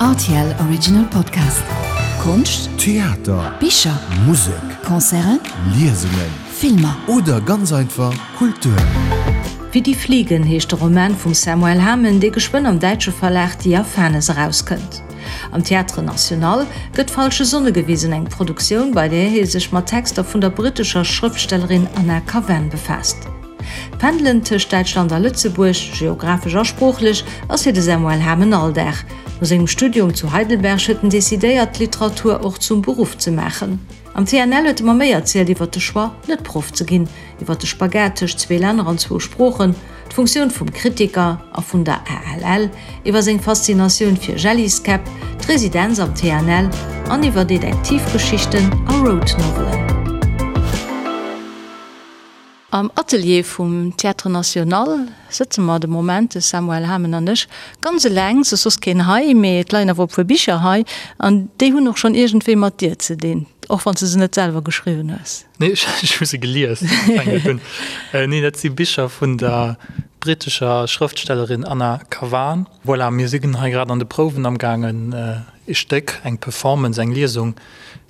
Rtl Original Podcast. Konscht, Theater, Bicher, Musek, Concerten, Liesungen, Filmer. Oder ganz einfach Kultur. Wie die Fliegen heescht de Roman vum Samuel Hamen, dee geschwënn am däitsche Verlag Diaphanes erauskënnt. Am Théâtre National gëtt Falsche Sonne gewisen, eng Produktioun, bei där hie sech mat Texter vun der brittescher Schrëftstellerin Anna Kavan befaasst. D'Pendelen tëscht Däitschland a Lëtzebuerg, geographesch a sproochlech, ass fir de Samuel Hamen Alldag. No sengem Studium zu Heidelberg huet en decidéiert, d'Literatur och zum Beruff ze maachen. Am TNL huet e mer méi erzielt iwwer de Choix, net Proff ze ginn, iwwer de Spagat tëscht zwee Länner an zwou Sproochen, d'Funktioun vum Kritiker a vun der ALL, iwwer seng Faszinatioun fir Jelliskäpp, d'Residenz am TNL an iwwer Detektivgeschichten a Road-Novelen. Am Atelier vum Théâtre National sëtze mer de Moment, de Samuel Hamen an ech, ganz eleng. Et ass soss keen hei, mee et leien awer e puer Bicher hei an déi hunn och schonn iergendwéi mat dir ze dinn, och wann s de se net selwer geschriwwen hues. Nee, ech hu se gelies. Nee, dat si Bicher vun der brittescher Schrëftstellerin Anna Kavan. Voilà, mir sinn hei grad an de Prouwen amgaangen, e Stéck, eng Performance, eng Liesung,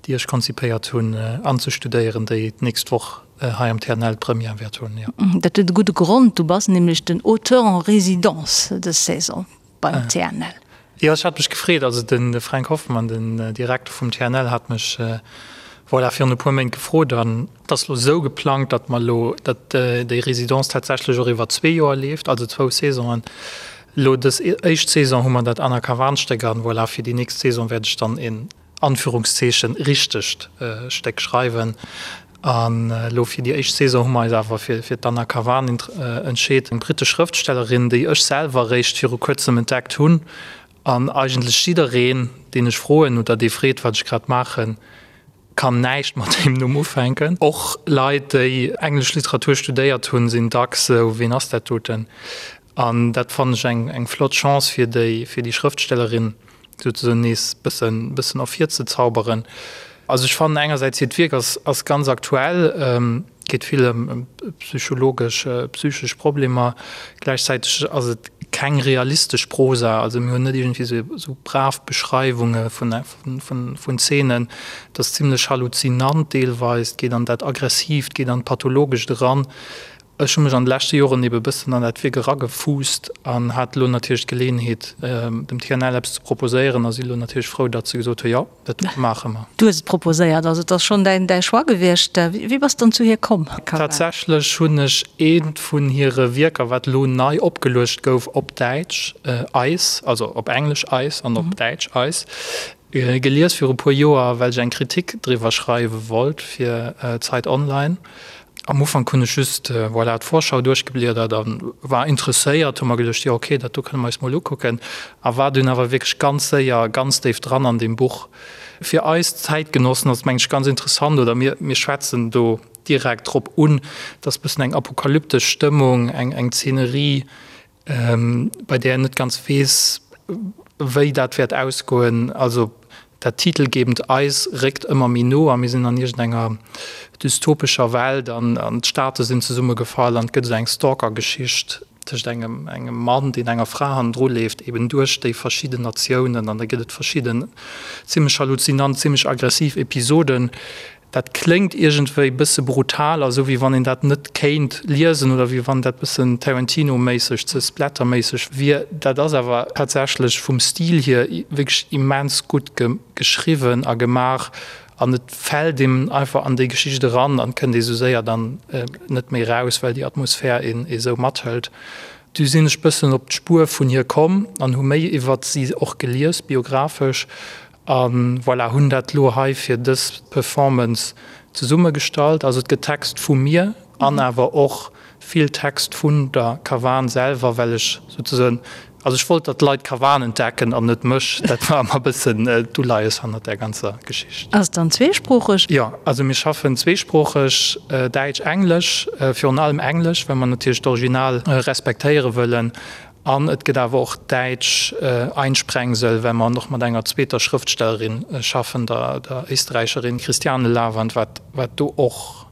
déi ech konzipéiert hunn, anzestudéieren, déi d'nächst Woch hei am TNL d'Première wäert hunn, jo. Dat huet e gudde Grond, du bass nämlech den Auteur en résidence dës Saison beim TNL. Jo, ech hat mech gefreet. Also de Fränk Hoffmann, den Direkter vum TNL, hat mech, voilà, virun e puer Méint gefrot. An et ass elo esou geplangt, datt mer elo, datt déi Résidence tatsächlech och iwwer zwee Joer leeft, also zwou Saisonen. Elo dës éischt Saison hu mer dat Anna Kavan-Stéck an, voilà, fir déi nächst Saison wäert ech dann een Anführungszeechen, richtegt Stéck schreiwen. An elo fir déi éischt Saison hu mer eis awer fir d'Anna Kavan entscheet, eng brittesch Schrëftstellerin, déi ech selwer eréischt viru kuerzem entdeckt hunn. An eigentlech jiddereen, deen ech froen oder dee freet, wat ech grad maachen, kann näischt mat deem Numm ufänken. Och Leit, déi englesch Literatur studéiert hunn, sinn dacks esou, Ween ass dat doten? An dat fannen ech eng eng flott Chance fir déi fir déi Schrëftstellerin souzesoen nees bëssen bëssen ervirzezauberen. Also ech fannen engersäits hiert Wierk ass ass ganz aktuell, geet vill ëm ëm psychologesch psychesch Problemer, gläichzäiteg ass et keng realistesch Prosa, also mir hunn net iergendwéi sou sou brav Beschreiwunge vun vun vun Zeenen, et ass zimlech halluzinant deelweis, et geet an dat Aggressiivt, geet an d'Pathologescht eran. Ech hu mech an de leschte Joren ebe bëssen an dat Wierk eragefuusst an hat elo natierlech d'Geleeënheet, dem TNL eppes ze proposéieren a si elo natierlech frou, datt se gesot hu jo, dat maache mer. Du hues et proposéiert, also et ass schonn däin däi Choix gewiescht. Wéi bass de dann zu hir komm? Tatsächlech hunn ech eent vun hire Wierker, wat elo nei opgeluecht gouf op Däitsch, Eis, also op Englesch Eis an op Däitsch Eis, Gelies viru puer Joer, well ech eng Kritik driwwer schreiwe wollt fir Zeit Online. Am Ufank hunn ech just, voilà, d'Vorschau duerchgebliedert a war interesséiert, hu mer geduecht, jo ok, dat do kënne mer eis mol ukucken, a war dunn awer wierklech ganz séier ganz déif dran an deem Buch. Fir eis Zäitgenossen ass et mengen ech ganz interessant, oder mir, mir schwätzen do direkt drop un, dass bëssen eng apokalyptesch Stëmmung, eng, eng Zeenerie, bei där een net ganz weess, wéi dat wäert ausgoen. Also dat titelgebend Eis réckt ëmmer méi no a mir sinn an iergendenger dystopescher Welt an d'Staate sinn zesummegefall an et gëtt esou eng Stalker-Geschicht tëscht engem engem Mann, deen enger Fra hannendru leeft, eben duerch déi verschidden Natiounen an da gëtt et verschidden zimmlech halluzinant, zimmlech aggressiv Episoden. Dat kléngt iergendwéi bësse brutal a sou wéi wann een dat net kéint liesen oder wéi wann dat bëssen Tarantino-méisseg, ze Splatter-méisseg wier. Dat ass awer tatsächlech vum Stil hier wierklech immens gutt geschriwwen a gemaach an et fält een einfach an déi Geschicht eran an kënnt ee sou séier dann net méi raus, well déi Atmosphär een esou mathëlt. Du sinn ech bëssen op d'Spuer vun hir komm an hu méi iwwert si och gelies, biographesch, A voilà, hunn dat elo hei fir dës Performance zesummegestallt. Also et gëtt Text vu mir an awer och vill Text vun der Kavan selwer, well ech souzesoen, also ech wollt, datt d'Leit d'Kavan entdecken an net mech. Dat war ëmmer e bëssen d'Uleies hannert där ganzer Geschicht. Ass et dann zweesproocheg? Jo, also mir schaffen zweesproocheg, Däitsch, Englesch, virun allem Englesch, well mer natierlech d'Original respektéiere wëllen. An et gëtt awer och däitsch Einsprengsel, well mer och mat enger zweeter Schrëftstellerin schaffen, der Éisträicherin Christiane Lavand, wat do och.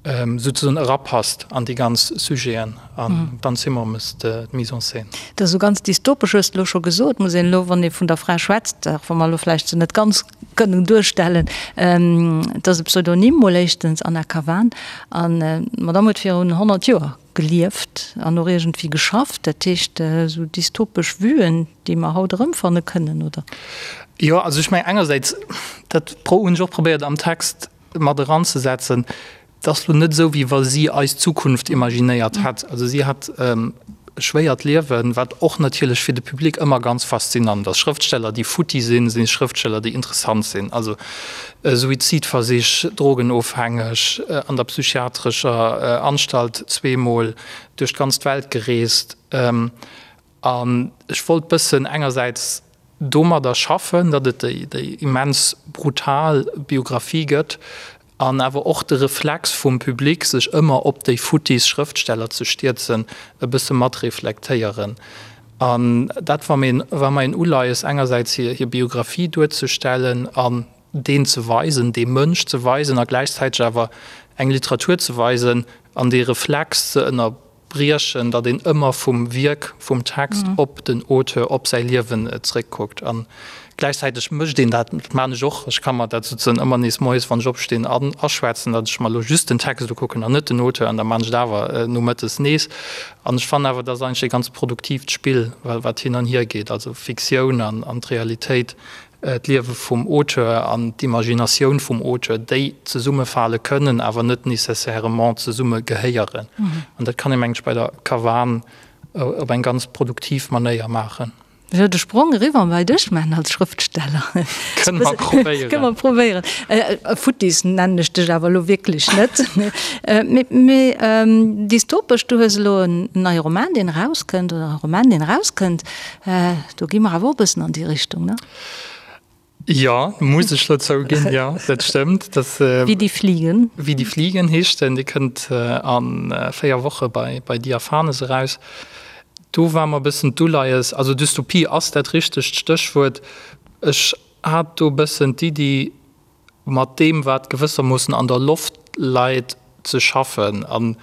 Souzesoen erapasst an déi ganz Sujeten an d'Anne Simon mécht d'Mise en scène. Dat ass esou ganz dystopesch, hues de elo scho gesot. Muss een elo, wann ee vun der Fra schwätzt, och wa mer elo vläicht se net ganz kënnen duerstellen, et ass e Pseudonym mol éischtens, Anna Kavan, an d'Madame huet virun 100 Joer gelieft an och iergendwéi geschafft. Dat heescht, esou dystopesch Vuen, déi mer haut erëmfanne kënnen, oder? Jo, also ech mengen engersäits, dat hunn ech och probéiert am Text mat eranzesetzen, et ass lo net esou, wéi wa si eis Zukunft imaginéiert hätt. Also si hat e schwéiert Liewen, wat och natierlech fir de Public ëmmer ganz faszinant ass. Schrëftsteller, déi futti sinn, si Schrëftsteller, déi interessant sinn. Also Suizidversich, drogenofhängeg, an der psychiatrescher Anstalt zweemol, duerch d'ganz Welt gereest. An ech wollt bëssen engersäits domadder schaffen, datt et déi immens brutal Biographie gëtt an awer och de Reflex vum Public, sech ëmmer op déi futtis Schrëftsteller ze stierzen, e bësse mat reflektéieren. An dat war mir war mer een Uleies, engersäits hir Biographie duerzestellen an deen ze weisen, dee Mënsch ze weisen a gläichzäiteg awer eng Literatur ze weisen an dee Reflex ze ënner. Briechen, datt een ëmmer vum Wierk, vum Text op den Auteur, op säi Liewen zréckkuckt. A gläichzäiteg mécht een dat, dat maan ech och, ech ka mer dat souzesoen ëmmer nees moies, wann ech opstinn, aschwätzen, datt ech mer elo just den Text ukucken an net den Auteur, an da maan ech et awer nomëttes nees. An ech fannen awer, dat ass eigentlech e ganz produktiivt Spill, wat hin an hier geet, also Fiktioun an d'Realitéit d'Liewe vum Auteur an d'Imaginatioun vum Auteur, déi zesummefale kënnen, awer net nécessairement zesumme gehéieren. An dat kann ee, mengen ech, bei der Kavan op eng ganz produktiv Manéier maachen. Ech wëll de Sprong eriwwer bei dech maachen als Schrëftsteller. Kënne mer probéieren. Kënne mer probéieren. Futtis nennen ech dech awer elo wierklech net. Mee dystopesch, du hues elo en neie Roman, deen erauskënnt, oder e Roman, deen erauskënnt. Do gi mer awer och e bëssen an déi Richtung, ne? Jo, muss ech lo zouginn, jo, dat stëmmt. Dat, Wie die Fliegen. Wie die Fliegen heescht en. Dee kënnt a 4 Woche bei, bei Diaphanes eraus. Do war mer e bëssen d'Uleies, also Dystopie ass dat richtegt Stéchwuert. Ech hat do e bëssen d'Iddi, mat deem, wat gewëssermoossen an der Loft läit, ze schaffen. An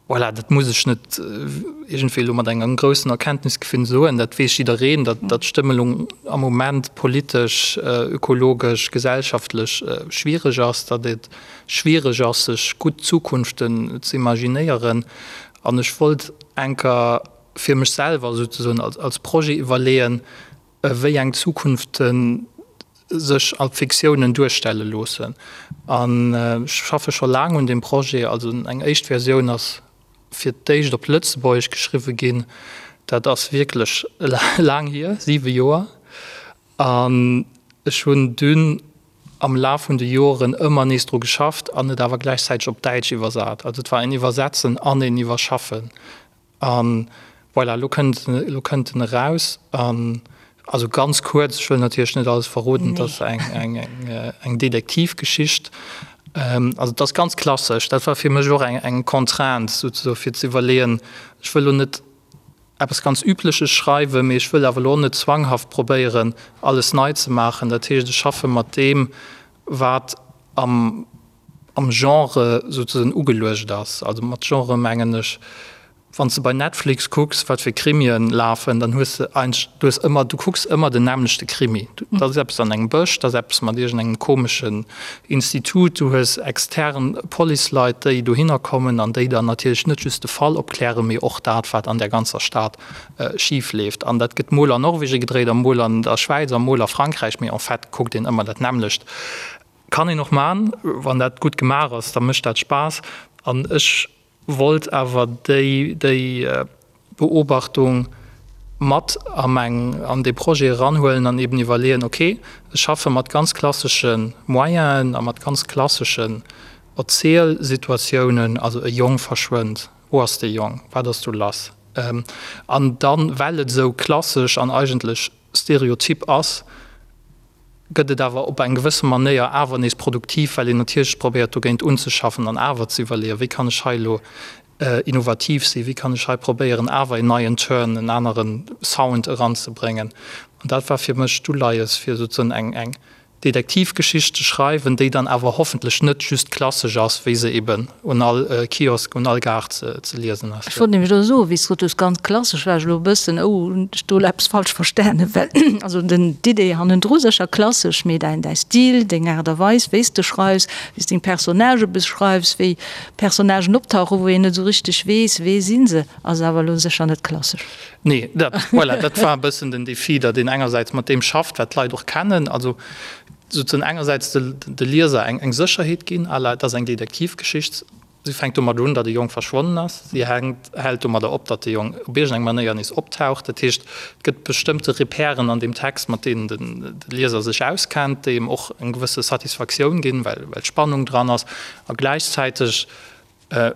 Voilà, dat muss ech net iergendwéi elo mat engem groussen Erkenntnisgewinn soen, dat weess jiddereen, datt d'Stëmmelung am Moment politesch, ökologesch, gesellschaftlech schwiereg ass, datt et schwiereg ass, sech gutt Zukunften ze imaginéieren. An ech wollt enker fir mech selwer souzesoen als Projet iwwerleeën, wéi eng Zukunfte sech als Fiktiounen duerstelle loossen. An ech schaffe scho laang un deem Projet. Also eng éischt Versioun ass fir d'éischt op Lëtzebuergesch geschriwwe ginn. Dat ass wierklech laang hier, siwe Joer. An ech hunn dunn am Laf vun de Joren ëmmer nees dru geschafft an et awer gläichzäiteg op Däitsch iwwersat. Also et war een Iwwersetzen an een Iwwerschaffen. An voilà, elo kënnt, elo kënnt en eraus. An also ganz kuerz, ech wëll natierlech net alles verroden, et ass eng, eng, eng, eng Detektivgeschicht. Also et ass ganz klassesch. Dat war fir mech och eng, eng Contrainte souzesoe fir ze iwwerleeën, ech wëll elo net eppes ganz Übleches schreiwen, mee ech wëll awer elo och net zwanghaft probéieren, alles nei ze maachen. Dat heescht, ech schaffe mat deem, wat am, am Genre souzesoen ugeluecht ass. Also mat Genre mengen ech, wann s de bei Netflix kucks, wat fir Krimien lafen, dann hues de eigentlech, du hues ëmmer, du kucks ëmmer den nämmlechte Krimi. Dat ass eppes an engem Bësch, dat ass eppes mat iergendengem komeschen Institut, du hues extern Policeleit, déi dohinner kommen an déi dann natierlech net just de Fall opklären, mee och dat, wat an där ganzer Stad schif leeft. An dat gëtt mol an Norwegen gedréit a mol an der Schwäiz a mol a Frankräich, mee en fait kuckt een ëmmer dat nämmlecht. Kann een och man, wann dat gutt gemaach ass, da mécht dat Spaass. An ech wollt awer déi déi Beobachtung mat a meng an dee Projet eranhuelen an eben iwwerleeën, ok, ech schaffe mat ganz klassesche Moyenen a mat ganz klasseschen Erzielsituatiounen, also e Jong verschwënnt, wou ass dee Jong, wat ass do lass? An dann, well et esou klassesch an eigentlech stereotyp ass, gëtt et awer op eng gewësse Manéier awer nees produktiv, well een natierlech probéiert dogéint unzeschaffen an awer ze iwwerleeën, wéi kann ech hei elo innovativ sinn, wéi kann ech hei probéieren awer een neien Turn, en anere Sound eranzebréngen. An dat war fir mech d'Uleies, fir souzesoen eng, eng. Detektivgeschicht ze schreiwen, déi dann awer hoffentlech net just klassesch ass, wéi se eben un all Kiosk, un all Gare ze liesen ass. Ech wollt nämlech elo soen, wéi s de gesot hues, ganz klassesch, war ech elo e bëssen, oh, hunn ech do elo eppes falsch verstanen? Well also den, d'Idee hannendru sécher klassesch, mee däin, däi Stil, deng Aart a Weis, wéi s de schreifs, wéi s deng Personnagë beschreifs, wéi Personnagen optauchen, wou een net esou richteg weess, wee si se, ass awer elo sécher net klassesch. Nee, dat, voilà, dat war e bëssen den Défi, datt een engersäits mat deem schafft, wat d'Leit och kennen, also souzesoen engersäits de, de Lieser eng, eng Sécherheet ginn, à la, et ass eng Detektivgeschicht, si fänkt domat un, datt e Jong verschwonnen ass, si hänkt, hält domadder op, datt de Jong op iergendeng Manéier nees optaucht. Dat heescht, et gëtt bestëmmte Repèren an deem Text, mat deenen den, de Lieser sech auskennt, déi em och eng gewësse Satisfaktioun ginn, well, well Spannung dran ass a gläichzäiteg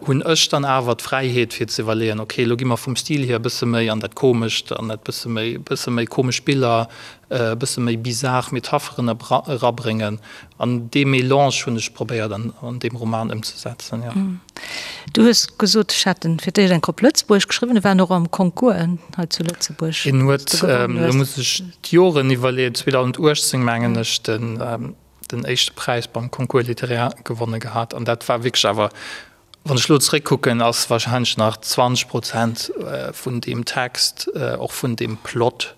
hunn ech dann awer d'Fräiheet fir ze iwwerleeën, ok, elo gi mer vum Stil hier e bësse méi an dat Komescht, an dat bësse méi, bësse méi komesch Biller, e bësse méi bizar Metapheren erabréngen. An dee Melange hunn ech probéiert an an deem Roman ëmzesetzen, jo. Du hues gesot, ech hätt en fir d'éischt eng Kopp Lëtzebuergesch geschriwwen, e war och am Concours hei zu Lëtzebuerg. En huet, elo muss ech d'Joren iwwerleeën, 2018 mengen ech, den den éischte Präis beim Concours littéraire gewonne gehat an dat war wierklech awer, wann ech elo zeréckkucken, ass wahrscheinlech nach 20 Prozent vun deem Text, och vun deem Plot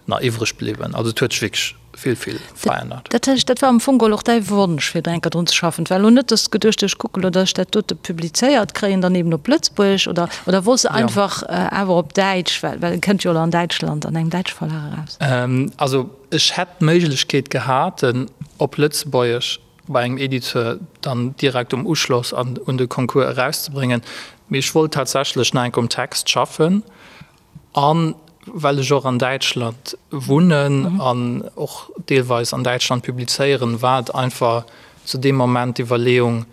nach iwwreg bliwwen. Also et huet sech wierklech vill, vill verännert. Dat heescht, dat war am Fong geholl och däi Wonsch, fir do eng Kéier drun ze schaffen? Et war elo net, datt s de geduecht hues, ech kucke elo, datt ech dat dote publizéiert kréien, dann eben op Lëtzebuergesch, oder, oder wollts de einfach awer op Däitsch, well, well e kënnt jo elo an Däitschland an engem däitsche Verlag eraus? Also Ech hätt d'Méiglechkeet gehat, en op Lëtzebuergesch bei engem Editeur dann direkt um Uschloss an un de Concours erauszebréngen, mee ech wollt tatsächlech nach enk um Text schaffen. A well ech och an Däitschland wunnen an och deelweis an Däitschland publizéieren, war et einfach zu deem Moment d'Iwwerleeung,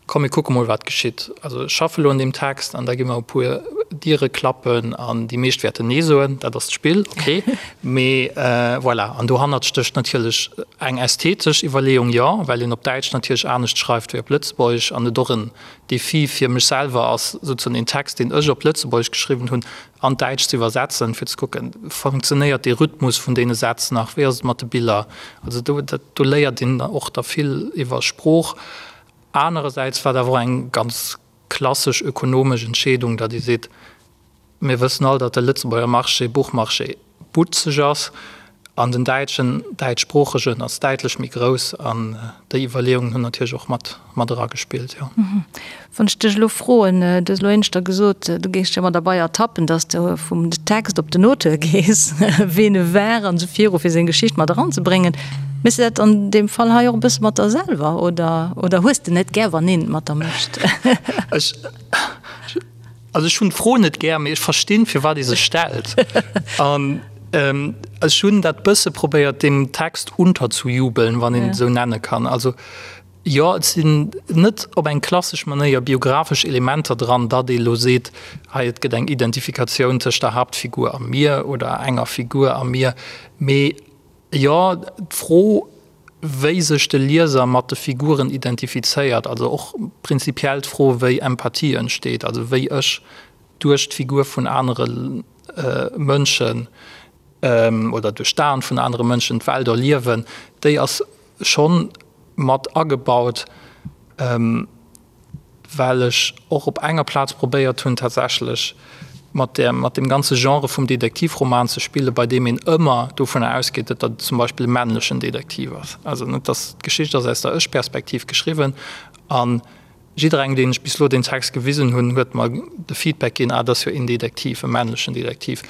Komm mir kucke mol wat geschitt. Also ech schaffe lo un deem Text an da gi mer e puer Diere klappen an déi meescht wäerten Nee soen, dat ass d'Spill, ok. Mee voilà, an dohannert stécht natierlech eng ästhetesch Iwwerleeung, jo, well een op Däitsch natierlech anescht schreift wéi op Lëtzebuergesch an et och en Defi fir mech selwer ass, souzesoen een Text, deen ech op Lëtzebuergesch geschriwwen hunn, an d'Däitscht ze iwwersetzen, fir ze kucken, funktionéiert dee Rhythmus vun deene Sätz nach, wéi ass et mat de Biller. Also do, dat, do léiert een och da vill iwwer Sprooch. Anerersäits war et awer och eng ganz klassesch ökonomesch Entscheedung, datt ee seet, Mir wëssen all, datt de Lëtzebuerger Marché, Buchmarché butzeg ass an den däitschen, däitschsproochegen ass däitlech méi grouss. An déi Iwwerleeungen hunn natierlech och mat, mat eragespillt, jo. Wann ech dech elo froen, du hues elo éineschter gesot, du géings dech ëmmer derbei ertappen, datt s de vum Text op den Auteur gees, ween e war an esou viru fir seng Geschicht mat eranzebréngen. Méchs de dat an deem Fall hei och e bësse mat der selwer oder, oder hues de net gär, wann een et mat der mécht? Ech, also ech hunn d'Fro net gär, mee ech verstinn, firwat ee se stellt. An ech hunn dat bësse probéiert, deem Text unterzujubeln, wann een et esou nenne kann. Also jo, et sinn net op eng klassesch Manéier biographesch Elementer dran, datt ee lo seet, hei et gëtt eng Identifikatioun tëscht der Haaptfigur a mir oder enger Figur a mir, mee Jo, d'Fro, wéi sech de Lieser mat de Figuren identifizéiert, also och prinzipiell d'Fro, wéi Empathie entsteet, also wéi ech duerch d'Figur vun anere Mënschen oder duerch d'Aen vun anere Mënschen d'Welt erliewen, déi ass schonn mat agebaut. Well ech och op enger Plaz probéiert hunn tatsächlech mat där, mat deem ganze Genre vum Detektivroman ze spillen, bei deem een ëmmer dovunner ausgeet, datt dat zum Beispill e männlechen Detektiv ass. Also net, datt d'Geschicht ass aus der Ech-Perspektiv geschriwwen a jidderengem, deen ech bis elo deen Text gewisen hunn, huet mer de Feedback ginn, ah, dat ass jo een Detektiv, e männlechen Detektiv.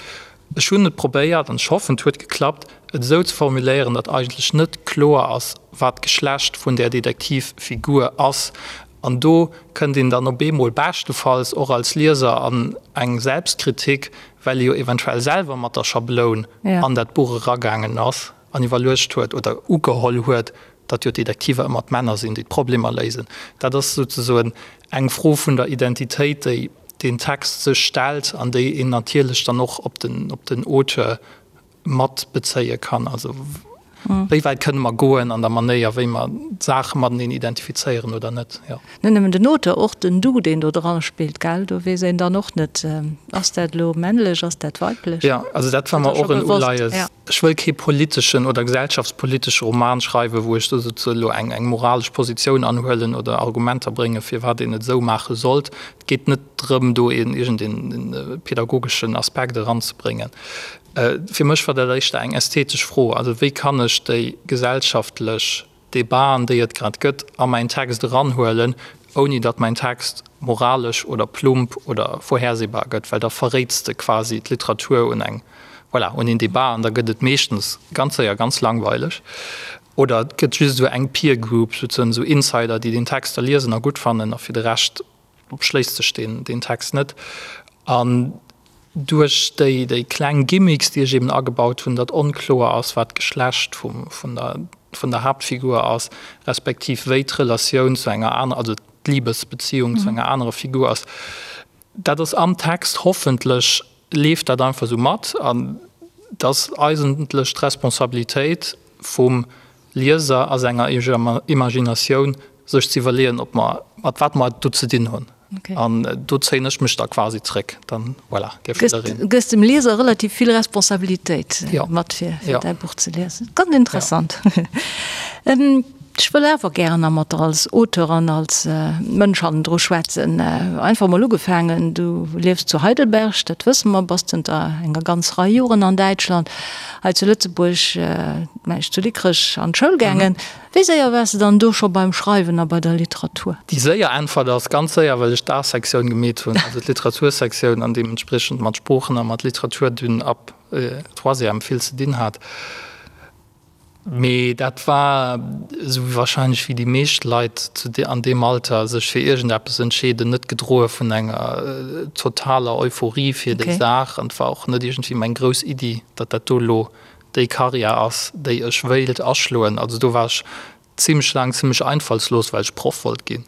Ech hunn et probéiert, an ech hoffen, et huet geklappt, et esou ze formuléieren, datt eigentlech net kloer ass, wat d'Geschlecht vun där Detektivfigur ass. An do kënnt een dann op eemol beschtefalls och als Lieser an eng Selbstkritik, well ee jo eventuell selwer mat der Schabloun an dat Buch eragaangen ass an iwwerluecht huet oder ugeholl huet, datt jo d'Detektiver ëmmer d'Männer sinn, déi d'Problemer léisen. Dat ass souzesoen eng Fro vun der Identitéit, déi deen Text sech stellt an déi een natierlech dann och op den, op den Auteur mat bezéie kann. Also. Wéi wäit kënne mer goen an der Manéier, wéi mer d'Saache mateneen identifizéieren oder net? Jo. Net nëmmen den Auteur, och den Du, deen do dra spillt, gell? Do weess een dann och net, ass dat elo männlech, ass dat weiblech? Jo, also dat war mer och en Uleies. Ech wëll kee politeschen oder gesellschaftspolitesche Roman schreiwen, wou ech do souze elo eng eng moralesch Positioun anhuelen oder Argumenter bréngen, firwat een et esou maache sollt. Et geet net drëm, do een iergendeen pedagogeschen Aspekt eranzebréngen. Fir mech war dat éischter eng ästhetesch Fro, also wéi kann ech déi gesellschaftlech Debaten, déi et grad gëtt, a mäin Text eranhuelen, ouni datt mäin Text moralesch oder plump oder vorhersehbar gëtt, well da verréits de quasi d'Literatur un eng, voilà, un een Debat an da gëtt et meeschtens ganz séier ganz langweileg. Oder et gëtt just esou eng Peer Group, souzuen esou Insider, déi deen Text da liesen a gutt fannen a fir de Rescht Schléisst sech deen Text net. An duerch déi déi kleng Gimmicks, déi ech eben agebaut hunn, datt onkloer ass, wat d'Geschlecht vum vun der vun der Haaptfigur ass, respektiv wéi d'Relatioun zu enger aner, also d'Libesbeziung zu enger anerer Figur ass, dat ass am Text, hoffentlech leeft dat einfach esou mat. An et ass eigentlech d'Responsabilitéit vum Lieser a senger Imaginatioun sech ze iwwerleeën, ob mer, mat wat mer et do ze dinn hunn. An do zéien ech mech da quasi zréck. Dann, voilà, dierf jiddereen. Gëss dem Lieser relativ vill Responsabilitéit mat, fir däi Buch ze liesen. Ganz interessant. Ech wëll awer gären nach mat der als Auteur an als Mënsch hannendru schwätzen. Einfach mol ugefaangen, du liefs zu Heidelberg, dat wësse mer, bass zënter enger ganz Rei Joren an Däitschland. Hei zu Lëtzebuerg, mengen ech, zu Dikrech an d'Schoul gaangen. Wéi séier waars de dann do scho beim Schreiwen a bei der Literatur? Déi séier Äntwert ass, ganz séier, well ech d'A-Sektioun gemeet hunn, also d'Literatursektioun, an deementspriechend mat Sproochen a mat Literatur dunn ab Troisième vill ze dinn hat. Mee dat war, esou wahrscheinlech wéi déi meescht Leit zu an deem Alter sech fir iergendeppes entscheeden, net gedroe vun enger totaler Euphorie fir déi Saach. An et war och net iergendwéi meng grouss Iddi, datt dat do elo déi Karriär ass, déi ech wéilt aschloen. Also do war ech zimmlech laang zimmlech einfallslos, well ech Proff wollt ginn,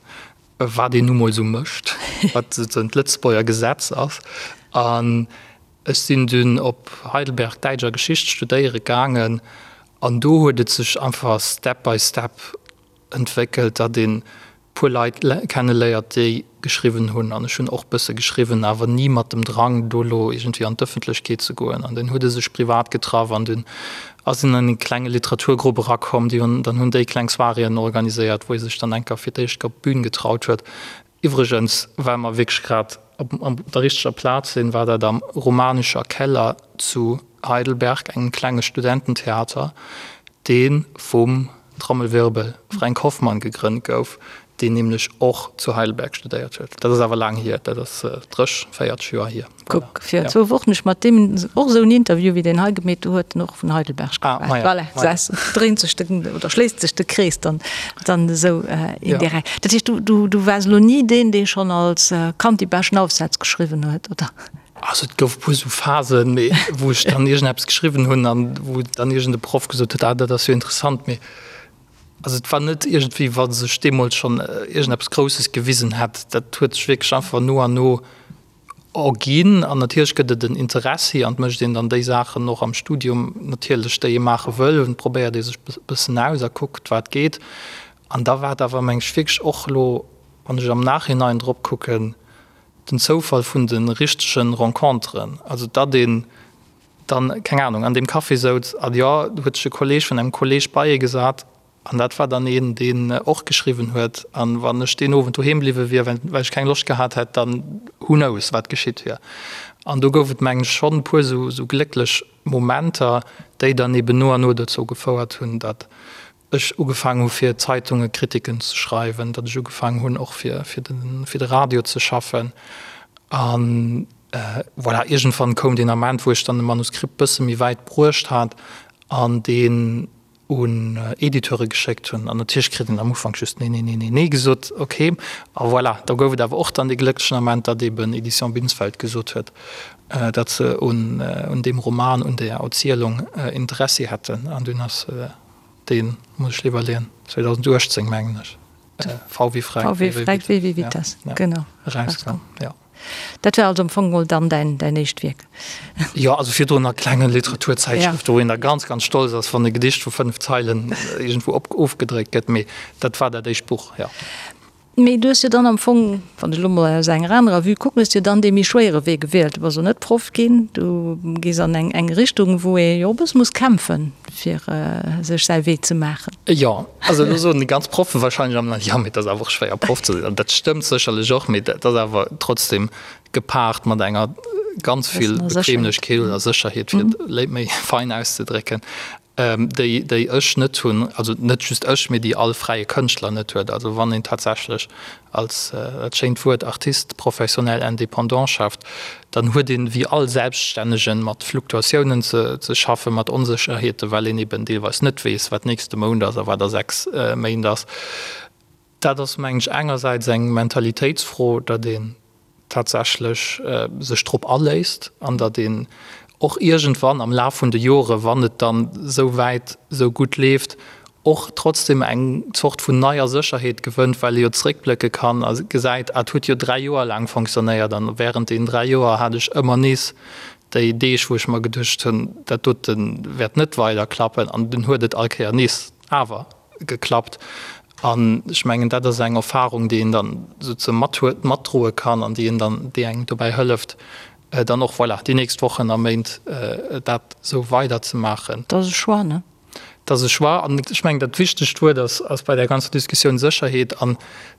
wat een nu mol esou mécht, wat souzesoen d'Lëtzebuerger Gesetz ass. An Ech sinn dunn op Heidelberg Däitsch a Geschicht studéiere gaangen an do huet et sech einfach step by step entwéckelt, datt een puer Leit kenne léiert, déi geschriwwen hunn. An ech hunn och bësse geschriwwen, awer ni mat dem Drang, do elo iergendwéi an d'Ëffentlechkeet ze goen. An dunn huet e sech privat getraff an dunn ass een an e klenge Literaturgrupp erakomm. Déi hunn dann hunn déi kleng Soiréeën organiséiert, wou ee sech dann enker fir d'éischt op d'Bün getraut huet. Iwwregens, well mer wierklech grad op der richteger Plaz sinn, war dat am Romanischer Keller zu Heidelberg, engem klenge Studententheater, dee vum, Trommelwirbel, Fränk Hoffmann gegrënnt gouf, deen nämlech och zu Heidelberg studéiert huet. Dat ass awer laang hier, dat ass 30, 40 Joer hier. Kuck, fir zwou Wochen ech mat deem och esou en Interview wéi deen hei gemeet, do huet en och vun Heidelberg geschwat. Voilà, gesäis de, dréint sech de, oder schléisst sech de Krees dann, dann esou indirekt. Dat heescht, du, du, du waars elo ni deen, dee schonn als Kand déi beschten Aufsätz geschriwwen huet, oder? Also et gouf e puer esou Phasen, mee wou ech dann iergendeppes geschriwwen hunn an wou dann iergend e Proff gesot huet, ah dat ass jo interessant, mee also et war net iergendwéi wa sech deemools schonn iergendeppes Grousses gewisen hätt. Dat huet sech wierklech einfach no an no Erginn. An natierlech gëtt et en Interessi an et mécht een dann déi Saachen och am Studium natierlech, déi ee maache wëll. Und probéiert ee sech e bëssen aus a kuckt, wat geet. An da war et awer, meng ech, wierklech och elo, wann ech am Nachhinein drop kucken, den Zoufall vun de richtege Renconteren. Also datt een dann, keng Anung, an deem Café souz an jo, do huet sech e Kolleeg vun engem Kolleeg bei ee gesat, An dat war dann een, deen och geschriwwen huet. An wann ech deen Owend doheem bliwwe wier, well ech keng Loscht gehat hätt, dann who knows, wat geschitt wier. An do gouf et, mengen ech, schonn e puer esou glécklech Momenter, déi dann eben no an no dozou gefouert hunn, datt ech ugefaangen hu fir Zeitunge Kritiken ze schreiwen, datt ech ugefaangen hunn och fir de Radio ze schaffen. An voilà, iergendwann koum deen Ament, wou ech dann e Manuskript bësse méi wäit bruecht hat an deen un Editeure geschéckt hunn an natierlech kritt een am Ufank just nee, nee, nee, nee, nee gesot, ok. A voilà, da gouf et awer och dann dee glécklechen Ament, datt eben Editions Binsfeld gesot huet, datt se un un deem Roman, un där Erzielung Interessi hätten an dunn ass deen, muss ech iwwerleeën, 2018 mengen ech, V wie Fränk, W wie Fränk, W wie Vitas, genau, erauskomm, jo. Dat war also am Fong mol dann däin, däin éischt Wierk? Jo, also virdrun a klenge Literaturzäitschrëften, wou een da ganz, ganz stolz ass, wann e Gedicht vu 5 Zeilen iergendwou op, ofgedréckt gëtt. Mee dat war dat éischt Buch, jo. Mee du hues jo dann am Fong, wann ech elo mol aus enger anerer Vue kucken, hues jo dann dee méi schwéiere Wee gewielt. Du bass elo net Proff ginn, du gees an eng, eng Richtung, wou ee jo e bësse muss kämpfen, fir sech säi Wee ze maachen. Jo, also elo soen déi ganz Proffen wahrscheinlech am Land, jo, mee et ass awer och schwéier Proff ze sinn. An dat stëmmt sécherlech och, mee dat ass awer trotzdem gepaart mat enger ganz vill Bequemlechkeet oder Sécherheet, fir et méi fein auszedrécken, déi, déi ech net hunn, also net just ech, mee déi all fräie Kënschtler net huet. Also wann een tatsächlech als, dat schéint Wuert, Artiste professionnel indépendant schafft, dann huet een, wéi all Selbststännegen, mat Fluktuatiounen ze schaffen, mat Onsécherheeten, well een eben deelweis net weess, wat nächste Mount ass a wat a 6 Méint ass. Dat ass, mengen ech, engersäits eng Mentalitéitsfro, datt een tatsächlech sech drop aléisst an datt een och iergendwann am Laf vun de Jore, wann et dann esou wäit esou gutt leeft, och trotzdem eng Zort vun neier Sécherheet gewënnt, well ee jo zeréckblécke kann a gesäit, ah, et huet jo 3 Joer laang fonctionnéiert an während deenen 3 Joer hat ech ëmmer nees déi Deeg, wou ech mer geduecht hunn, dat dote wäert net weider klappen an dunn huet et all Kéier nees awer geklappt. An ech mengen, dat ass eng Erfahrung, déi een dann souze mathuet, matdroe kann an déi een dann, déi engem dobäi hëlleft, dann och, voilà, déi nächst Wochen a Méint dat esou weiderzemaachen. Dat ass e Choix, ne? Dat ass e Choix. An ech mengen, dat wichtegt Wuert ass, ass bei där ganzer Diskussioun Sécherheet. An et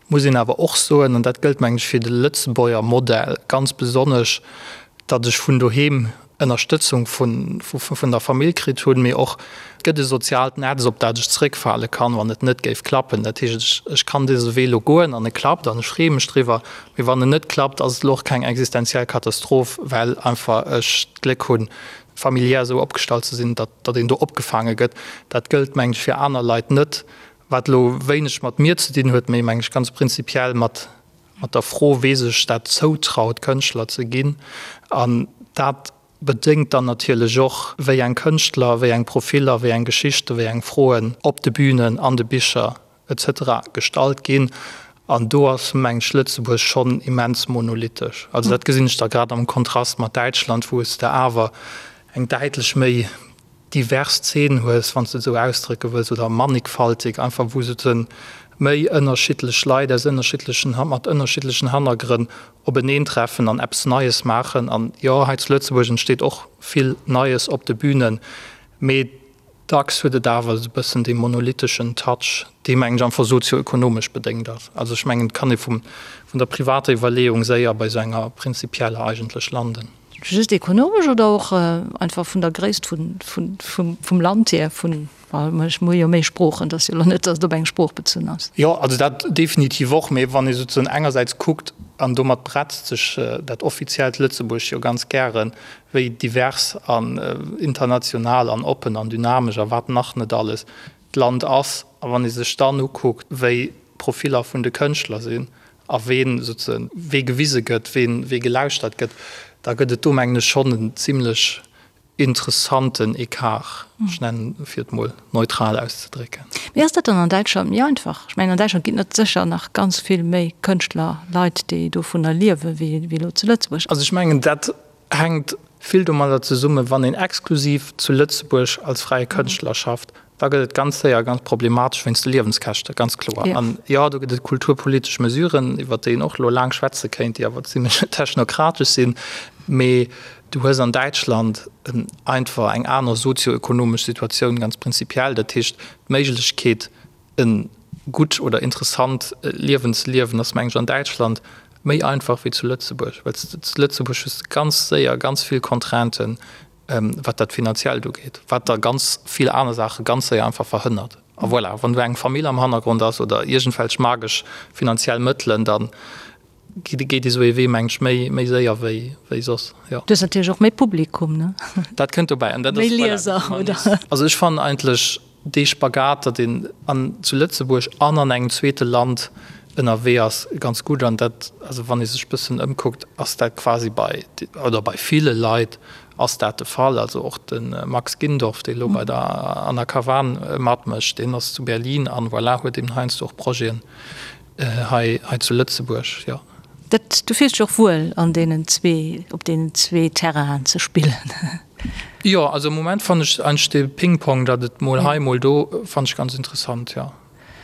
muss een awer och soen, an dat gëllt, mengen ech, fir de Lëtzebuerger Modell ganz besonnesch, datt ech vun doheem Ënnerstëtzung vun der Famill kritt hunn, mee och et gëtt e soziaalt Netz, op dat ech zeréckfale kann, wann et net géif klappen. Dat heescht, ech kann dëse Wee elo goen an e klappt an ech freeë mech driwwer, mee wann en net klappt, ass et elo och keng existenziell Katastroph, well einfach ech d'Gléck hunn, familiär esou opgestallt ze sinn, datt een do opgefaange gëtt. Dat gëllt, mengen ech, fir aner Leit net, wat elo wéineg mat mir ze dinn huet, mee, mengen ech, ganz prinzipiell mat mat der Fro, wee sech dat zoutraut, Kënschtler ze ginn. An dat bedéngt dann natierlech och, wéi eng Kënschtler, wéi eng Profiller, wéi eng Geschichten, wéi eng Froen op de Bünen, an de Bicher etc. Gestallt ginn. An do ass, mengen ech, Lëtzebuerg schonn immens monolithesch. Also dat gesinn ech da grad am Kontrast mat Däitschland, wou s de awer eng däitlech méi divers Zeen hues, wann s de et esou ausdrécke wëlls, oder mannigfaltig, einfach wou souzen méi ënnerschiddlech Leit aus ënnerschiddlechen, mat ënnerschiddlechen Hannergrënn openeentreffen an eppes Neies maachen. An jo, hei zu Lëtzebuerg entsteet och vill Neies op de Bünen, mee dacks huet et awer esou e bëssen dee monolitheschen Touch, dee mengen ech einfach sozioökonomesch bedéngt ass. Also ech mengen, et kann ee vum, vun der privater Iwwerleeung séier bei esou enger prinzipieller eigentlech landen. Just ekonomesch oder och einfach vun der Gréisst vum Land hier, vun, well ech hu jo méi Sproochen, et ass jo elo net, datt et op eng Sprooch bezunn ass. Jo, also dat definitiv och. Mee wann ee souzesoen engersäits kuckt, an domat bretzt sech dat offiziellt Lëtzebuerg jo ganz gären, wéi divers an international an oppen an dynamesch a wat nach net alles d'Land ass, a wann ee sech dann ukuckt, wéi d'Profiller vun de Kënschtler sinn a ween souzesoen wee gewise gëtt, ween wee gelauschtert gëtt, da gëtt et do, mengen ech, schonn en zimlech interessanten Ecart, ech nennen, fir et mol neutral auszedrécken. Mee ass dat dann an Däitschland méi einfach? Ech mengen, an Däitschland ginn et sécher nach ganz vill méi Kënschtler, Leit, déi dovunner liewen, wéi elo zu Lëtzebuerg. Also ech mengen, dat hänkt vill domadder zesummen, wann een exklusiv zu Lëtzebuerg als fräie Kënschtler schafft, da gëtt et ganz séier ganz problematesch wéinst de Liewenskäschte, ganz kloer. An jo, do gëtt et kulturpolitesch Mesuren, iwwert déi een och elo laang schwätze kéint, déi awer zimlech technokratesch sinn. Mee du hues an Däitschland einfach eng aner sozioökonomesch Situatioun ganz prinzipiell. Dat heescht, d'Méiglechkeet, E gutt oder interessant Liewen ze liewen ass, meng ech, an Däitschland méi einfach wéi zu Lëtzebuerg, well s de zu Lëtzebuerg hues de ganz séier ganz vill Contrainten, wat dat Finanziellt ugeet, wat da ganz vill aner Saache ganz séier einfach verhënnert. A voilà, wann du eng Famill am Hannergrond ass oder iergendwelch magesch finanziell Mëttelen, da geet esou ee Wee, meng ech, méi, méi séier wéi, wéi soss, jo. Du hues natierlech och méi Publikum, ne? Dat kënnt dobäi an dat ass, Méi Lieser, oder? Also ech fannen eigentlech dee Spagat, datt een an, zu Lëtzebuerg an an engem zweete Land ënnerwee ass, ganz gutt. An dat, also wann ee sech bëssen ëmkuckt, ass dat quasi bei, oder bei ville Leit ass dat de Fall. Also och de Max Gindorf, dee lo bei der Anna Kavan matmécht, deen ass zu Berlin an, voilà, huet eben heiansdo och Projeten hei, hei zu Lëtzebuerg, jo. Dat, du fills dech och wuel an deenen zwee, op deenen zwee Terrainen ze spillen? Jo, also am Moment fannen ech eigentlech dee Ping-Pong, datt et mol hei, mol do, fannen ech ganz interessant, jo.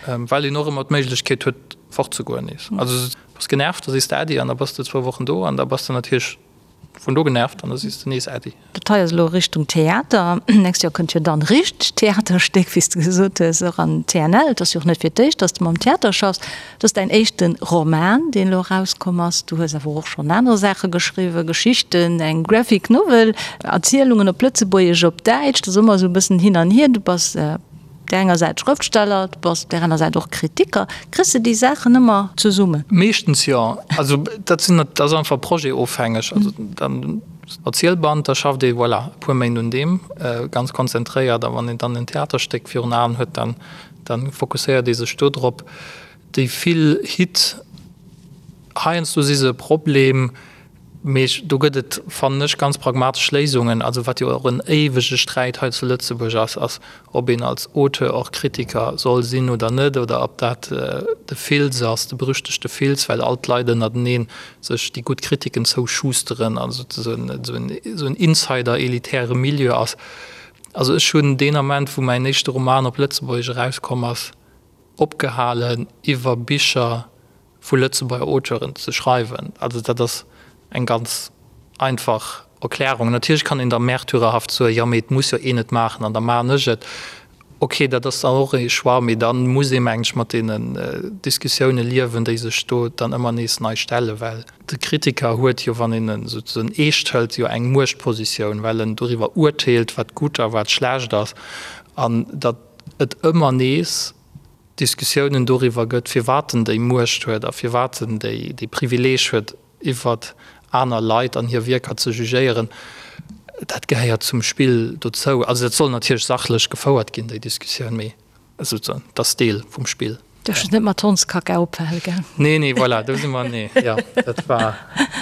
Well een och ëmmer d'Méiglechkeet huet fortzegoen nees. Also bass genervt, da sees de Äddi an da bass de zwou Wochen do an da bass de natierlech Vun do genervt an da sees de nees Äddi. Dat hei ass elo Richtung Theater. Nächst Joer kënnt jo dann richtegt Theaterstéck, wéi s de gesot hues, och an TNL. Et ass jo och net fir d'éischt, dass de mam Theater schaffs. Et ass däin éischte Roman, deen elo erauskomm ass. Du hues awer och schonn aner Saache geschriwwen, Geschichten, eng Graphic Novel, Erzielungen op Lëtzebuergesch, op Däitsch. Dat ass ëmmer esou e bëssen hin an hier. Du bass Op där enger Säit Schrëftsteller, du bass op där aner Säit och Kritiker. Kriss de déi Saachen ëmmer zesummen? Meeschtens jo. Also dat sinn, dat ass einfach projetofhängeg. Also dann Erzielband, da schafft ee voilà e puer Méint un deem ganz konzentréiert a wann een dann en Theaterstéck virun Aen huet, dann dann fokusséiert ee sech do drop. Déi vill Hit, heiansdo si se e Problem. Mee do gëtt et, fannen ech, ganz pragmatesch Léisungen. Also wat jo och en éiwege Sträit hei zu Lëtzebuerg ass, ass, ob een als Auteur och Kritiker soll sinn oder net, oder ob dat de Fils ass, de berüchtegte Fils, well all d'Leit ënnertenee sech déi gutt Kritiken zouschusteren an esou en insider-elitäre Milieu ass. Also ech hunn deen Ament, wou mäin éischte Roman op Lëtzebuergesch erauskomm ass, opgehalen iwwer Bicher vu Lëtzebuerger Auteuren ze schreiwen. Also dat ass eng ganz einfach Erklärung. Natierlech kann een da märtyrerhaft soen, jo mee et muss jo een et maachen an da maachen ech et. Ok, dat ass dann och ee Choix, mee da muss ee meng ech mat deenen Diskussioune liewen, déi sech do dann ëmmer nees nei stellen, well de Kritiker huet jo, wann een en souzesoen eescht hëlt, jo eng Muechtpositioun, well en doriwwer urteelt, wat gutt a wat schlecht ass an datt et ëmmer nees Diskussiounen doriwwer gëtt, firwat en déi Muecht huet a firwat en déi dee Privileeg huet, iwwert aner Leit an hir Wierker ze jugéieren, dat gehéiert zum Spill dozou. Also dat soll natierlech sachlech gefouert ginn, déi Diskussioun, mee souzesoen, dat ass Deel vum Spill. Duerfs net mat Hondskacka ophale, gell? Nee, nee, voilà, do si mer, nee, jo, dat war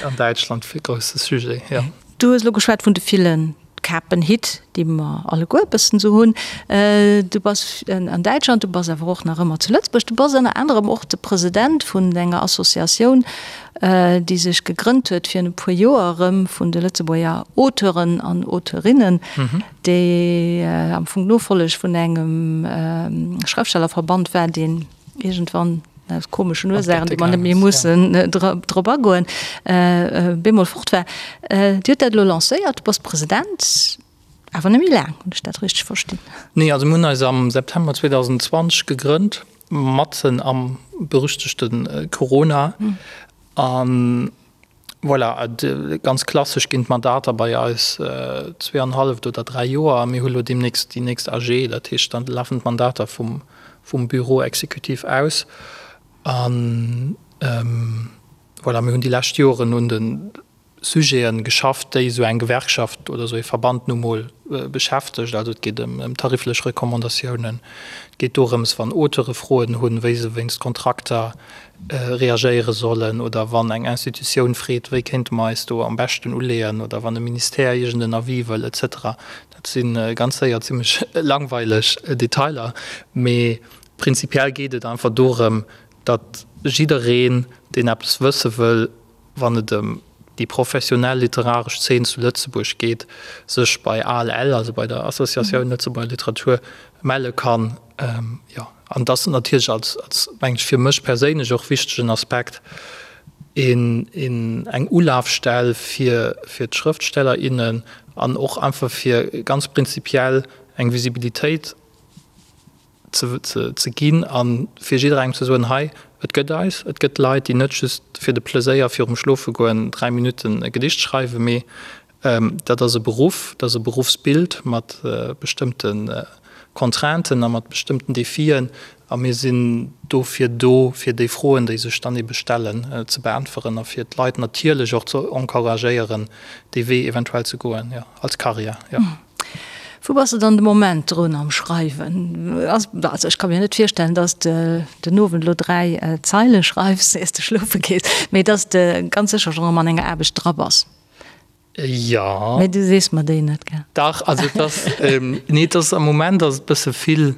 an Däitschland e grousse Sujet, jo. Du hues elo geschwat vun de villen Kapenhitt, déi mer alleguer e bëssen esou hunn. Du bass an Däitschland, du bass awer och nach ëmmer zu Lëtzebuerg. Du bass ënner anerem och de President vun enger Associatioun, déi sech gegrënnt huet virun e puer Joer erëm vun de Lëtzebuerger Auteuren an Auteurinnen, déi am Fong d'Nofolleg vun engem Schrëftstellerverband war, deen iergendwann aus komeschen Ursaachen, déi mer net méi mussen drop agoen, bemol fort war. Dir hutt dat elo lancéiert, du bass President, awer net méi laang, hunn ech dat richteg verstinn? Nee, also mir hunn eis am September 2020 gegrënnt, matzen am berüchtegte Corona. An Voilà, ganz klassesch ginn d'Mandater bei eis zweeanhalleft oder dräi Joer a mir hu lo deemnächst déi nächst AG, dat heescht, da lafen d'Mandater vum Bureau exécutif aus. A voilà, mir hunn déi lescht Joren un de Sujete geschafft, déi esou eng Gewerkschaft oder esou ee Verband nu mol beschäftegt. Also et geet ëm tariflech Recommandatiounen, et geet dorëms, wann Auteure Froen hunn, wéi se wéinst Kontrakter reagéiere sollen oder wann eng Institutioun freet, wéi kéinte mer eis do am beschten uleeën oder wann e Ministère iergend en Avis wëll et cetera. Dat si ganz séier zimmlech langweileg Detailer, mee prinzipiell geet et einfach dorëm, datt jiddereen, deen eppes wësse wëll, wann et ëm déi professionell literaresch Zeen zu Lëtzebuerg geet, sech bei ALL, also bei der Associatioun Lëtzebuerger Literatur, melle kann. Jo, an et ass natierlech als, als, mengen ech, fir mech perséinlech och wichtegen Aspekt, een, een, eng Ulafstell fir, fir d'Schrëftsteller, innen an och einfach fir ganz prinzipiell eng Visibilitéit ze, ze, ze ginn a fir jidderengem ze soen, hei, et gëtt eis, et gëtt Leit, déi net just fir de Pleséier virum Schlofegoen 3 Minutten e Gedicht schreiwen, mee dat ass e Beruff, dat ass e Beruffsbild mat bestëmmte Contrainten a mat bestëmmten Defien a mir sinn dofir do, fir déi Froen, déi sech dann ebe stellen, ze beäntweren a fir d'Leit natierlech och ze encouragéieren, dee Wee eventuell ze goen, jo, als Karriär, jo. Wou bass de dann de Moment drun am Schreiwen? Also ech ka mir net virstellen, dass de den Owend elo 3 Zeile schreifs, iers de schlofe gees, mee dass de ganz sécher schonn erëm an enger Aarbecht dra bass. Jo. Mee du sees mer déi net, gell? Dach, also et ass, nee, et ass am Moment ass et bësse vill.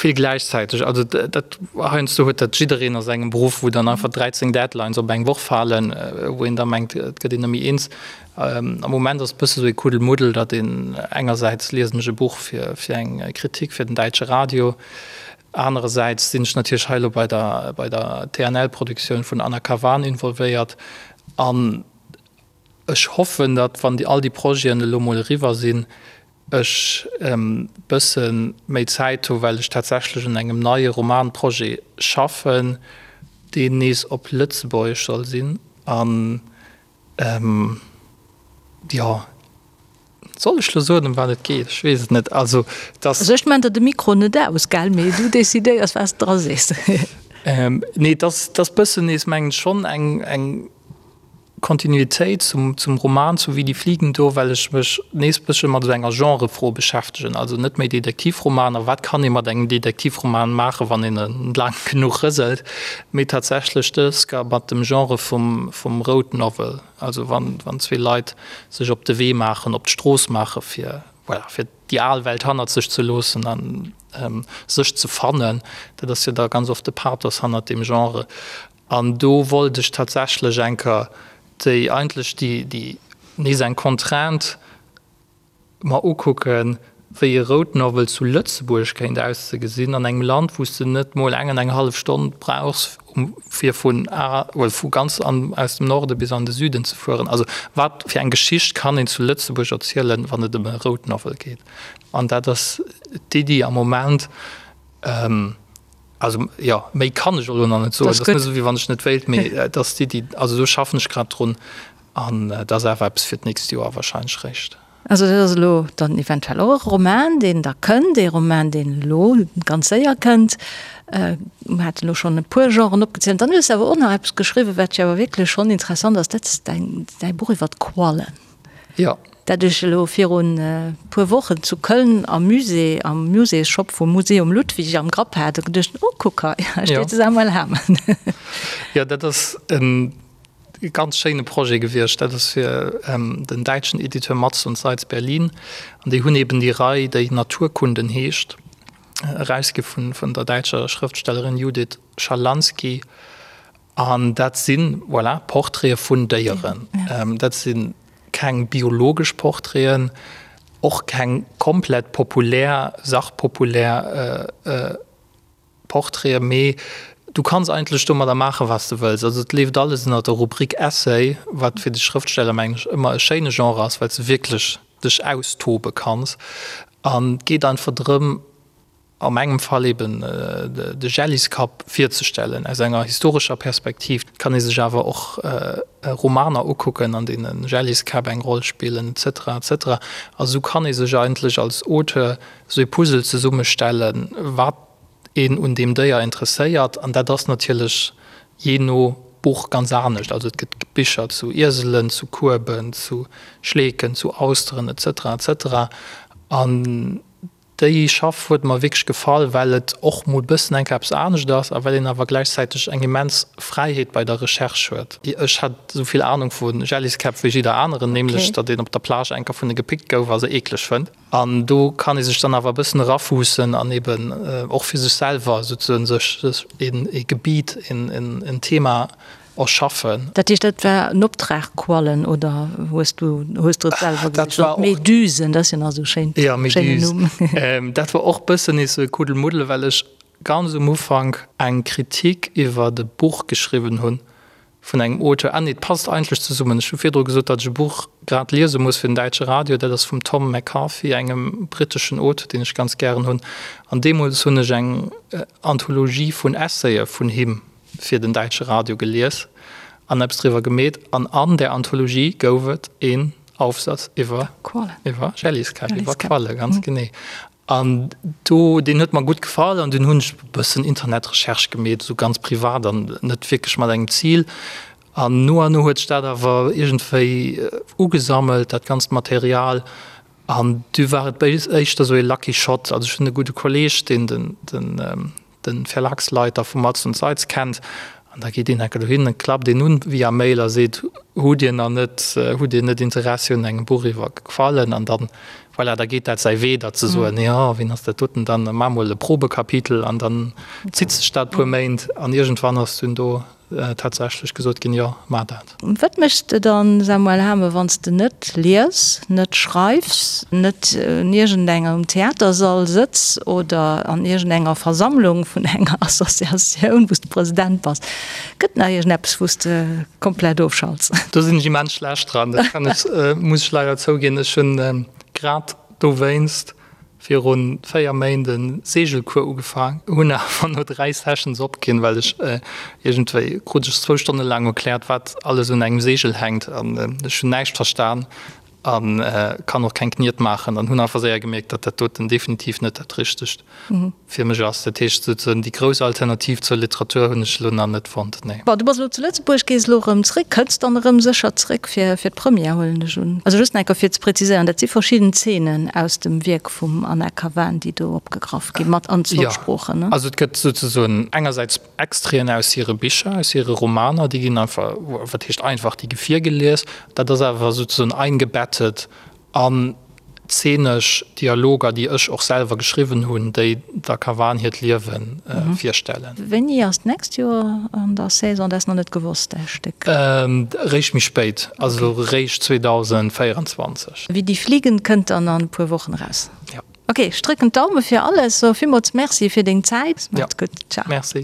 Vill gläichzäiteg. Also dat heiansdo huet dat jiddereen a sengem Beruff, wou dann einfach 13 Deadlines op eng Woch falen, wou een da mengt, et gëtt een net méi eens. Am Moment ass et bësse sou ee Kuddelmuddel, datt een engersäits liesen ech e Buch fir fir eng Kritik fir den däitsche Radio, anerersäits sinn ech natierlech hei elo bei der bei der TNL-Produktioun vun Anna Kavan involvéiert an ech hoffen, datt wann déi all déi Projeten elo mol eriwwer sinn, ech e bësse méi Zäit hu well ech tatsächlech un engem neie Romanprojet schaffen, deen nees op Lëtzebuergesch soll sinn an jo, soll ech lo soen ëm wat et geet? Ech weess et net. Also et ass. Also ech maan der de Mikro net aus, gell, mee du decidéiers wat s de dra sees. Nee, et ass, et ass bëssen nees mengen ech schonn eng, eng. Kontinuitéit zum zum Roman zu Wie die Fliegen do, well ech mech nees bëssche mat esou enger Genrefro beschäftegen, also net méi Detektivromaner, wat kann ee mat engem Detektivroman maachen, wann een e laang genuch rëselt, mee tatsächlech dës ga mat dem Genre vum vum Road Novel, also wann wann zwee Leit sech op de Wee maachen, op d'Strooss maache fir, voilà, fir déi al Welt hannert sech ze loossen an sech ze fannen. Dat ass jo da ganz oft de Pathos hannert deem Genre. An do wollt ech tatsächlech eng Kéier déi, eigentlech déi, déi nees eng Contrainte mer ukucken, wéi e Road Novel zu Lëtzebuerg kéint auszegesinn, an engem Land, wou s de net mol eng an eng hallef Stonn brauchs, fir vun A, well vu ganz an, aus dem Norde bis an de Süden ze fueren. Also wat fir eng Geschicht kann een zu Lëtzebuerg erzielen, wann et ëm e Road Novel geet? An dat ass d'Iddi am Moment. Also, jo, méi kann ech elo nach net soen. Dat ass net esou, wéi wann ech net wéilt, mee et ass d'Iddi. Also do schaffen ech grad drun an et ass awer eppes fir d'nächst Joer wahrscheinlech réischt. Also dat ass elo dann eventuell och e Roman, deen da kënnt, ee Roman, deen elo ganz séier kënnt. Mir haten elo schonn e puer Genren opgezielt. Dann hues de awer och nach eppes geschriwwen, wat jo awer wierklech schonn interessant ass, dat ass däin, däi Buch iwwer d'Quallen. Jo. Dat ech elo virun e puer Wochen zu Köln am Musée, am Muséesshop vum Museum Ludwig am Grapp hat a geduecht, oh kuck hei, hei steet de Samuel Hamen. Jo, dat ass e ganz schéine Projet gewiescht. Dat ass fir den däitschen Editeur Matz und Seitz Berlin. An déi hunn eben déi Rei, déi Naturkunden heescht, erausgi vun der däitscher Schrëftstellerin Judith Schalansky. An dat si, voilà, Portraite vun Déieren. Dat si keng biologesch Portraiten, och keng komplett populär, sachpopulär Portraiten, mee du kanns eigentlech domadder maachen, wat s de wëlls. Also et leeft alles ënner der Rubrik Essay, wat fir de Schrëftsteller, mengen ech, ëmmer e schéine Genre ass, well s de wierklech dech austobe kanns. An et geet einfach drëm, a mengem Fall eben de Jelliskapp virzestellen aus enger historescher Perspektiv. Et kann ee sech awer och Romaner ukucken, an deene Jelliskäpp eng Roll spillen, et cetera, et cetera. A sou kann ee sech eigentlech als Auteur sou ee Puzzle zesummestellen, wat een un deem Déier interesséiert. An dat ass natierlech jee no Buch ganz anescht. Also et gëtt Bicher zu Ieselen, zu Kueben, zu Schleeken, zu Austeren, et cetera, et cetera. An Déi Schaff huet mer wierklech gefall, well et och mol bëssen enk eppes anescht ass a well een awer gläichzäiteg eng immens Fräiheet bei der Recherche huet. Ech hat esou vill Anung vu Jelliskäpp wéi jidder aneren, nämlech datt een op der Plage enker vun e gepickt gouf a se eekleg fënnt. An do kann ee sech dann awer e bëssen erafuussen an eben och fir sech selwer souzesoen sech ee Gebiet, en Thema erschaffen. Dat heescht, dat war en Optrag, Quallen, oder hues du hues du et selwer gesicht? Oder d'Medusen, dat ass jo nach esou schéin, Ja, schéinen Numm. Méduse. Dat war och bëssen nees esou e Kuddelmuddel, well ech ganz um Ufank eng Kritik iwwert e Buch geschriwwen hunn vun engem Auteur. Ah nee, et passt eigentlech zesummen. Ech hu virdru gesot, datt ech e Buch grad liese muss fir den däitsche Radio. Dat ass vum Tom McCarthy, engem britteschen Auteur, deen ech ganz gären hunn. An deemools hunn ech eng Anthologie vun Essayë vun him fir den däitsche Radio gelies an eppes driwwer gemeet an an där Anthologie gouf et een Aufsatz iwwer iwwer Jelliskäpp, iwwer Qualle, ganz genee. An do, deen huet mer gutt gefall an dunn hunn ech e bëssen Internetrecherche gemeet, esou ganz privat an net wierklech mat engem Zil. An no an no huet sech dat awer iergendwéi ugesammelt, dat ganzt Material. An du war et éischter esou ee Lucky Shot. Also ech hunn e gudde Kolleeg, deen den den de Verlagsleiter vu Matz und Seitz kennt, an da geet een enke dohin, dann klappt een un via Mail a seet, Hutt Dir nach net, hutt Dir net Interessi un engem Buch iwwer Quallen? An dann, Voilà, da geet dat säi Wee, datt se soen, jo, wien ass dat doten dann, da maache mol e Probekapitel an dann zitt sech dat e puer Méint an iergendwann ass dunn do tatsächlech gesot ginn, jo, maach dat. Wat méchs de dann, Samuel Hamen, wann s de net lies, net schreifs, net un iergendengem Theatersall sëtz oder an iergendenger Versammlung vun enger Associatioun, wou s de President bass? Gëtt nach iergendeppes, wou s de komplett ofschalts? Do sinn ech immens schlecht dran, dat kann ech, muss ech leider zouginn. Ech hunn grad dowéinst viru 4 Méint e Seegelcours ugefaang, hunn awer no 3 Sessions opginn, well ech iergendwéi krut ech zwou Stonne laang erkläert, wat alles un engem Seegel hänkt an ech hunn näischt verstan a kann och keng Kniet maachen an hunn einfach séier gemierkt, datt dat doten definitiv net dat Richtegt fir mech ass. Dat heescht souzesoen déi grouss Alternativ zur Literatur hunn ech elo nach net fonnt, nee. Bon, du bass elo zu Lëtzebuerg, gees elo erëm zréck, kënns dann erëm sécher zréck fir fir d'Première, huelen ech un. Also just nach eng Kéier fir ze preziséieren, dat si verschidden Zeenen aus dem Wierk vum Anna Kavan, déi do opgegraff ginn, mat an zwou Sproochen, ne? Jo, also et gëtt souzesoen engersäits Extraiten aus hire Bicher, aus hire Romaner, déi ginn einfach, wat heescht einfach, déi gi virgelies. Dat ass awer souzesoen eingebettet An zeenesch Dialoger, déi ech och selwer geschriwwen hunn, déi der Kavan hiert Liewe virstellen. Wéini ass d'nächst Joer an der Saison? Dat ass nach net gewosst, däi Stéck? Réischt méi spéit, also réischt 2024. Wie die Fliegen kënnt dann an e puer Wochen eraus. Jo. Ok, ech drécken d'Daume fir alles. So villmools Merci fir deng Zäit. Macht's gutt. Ciao. Merci.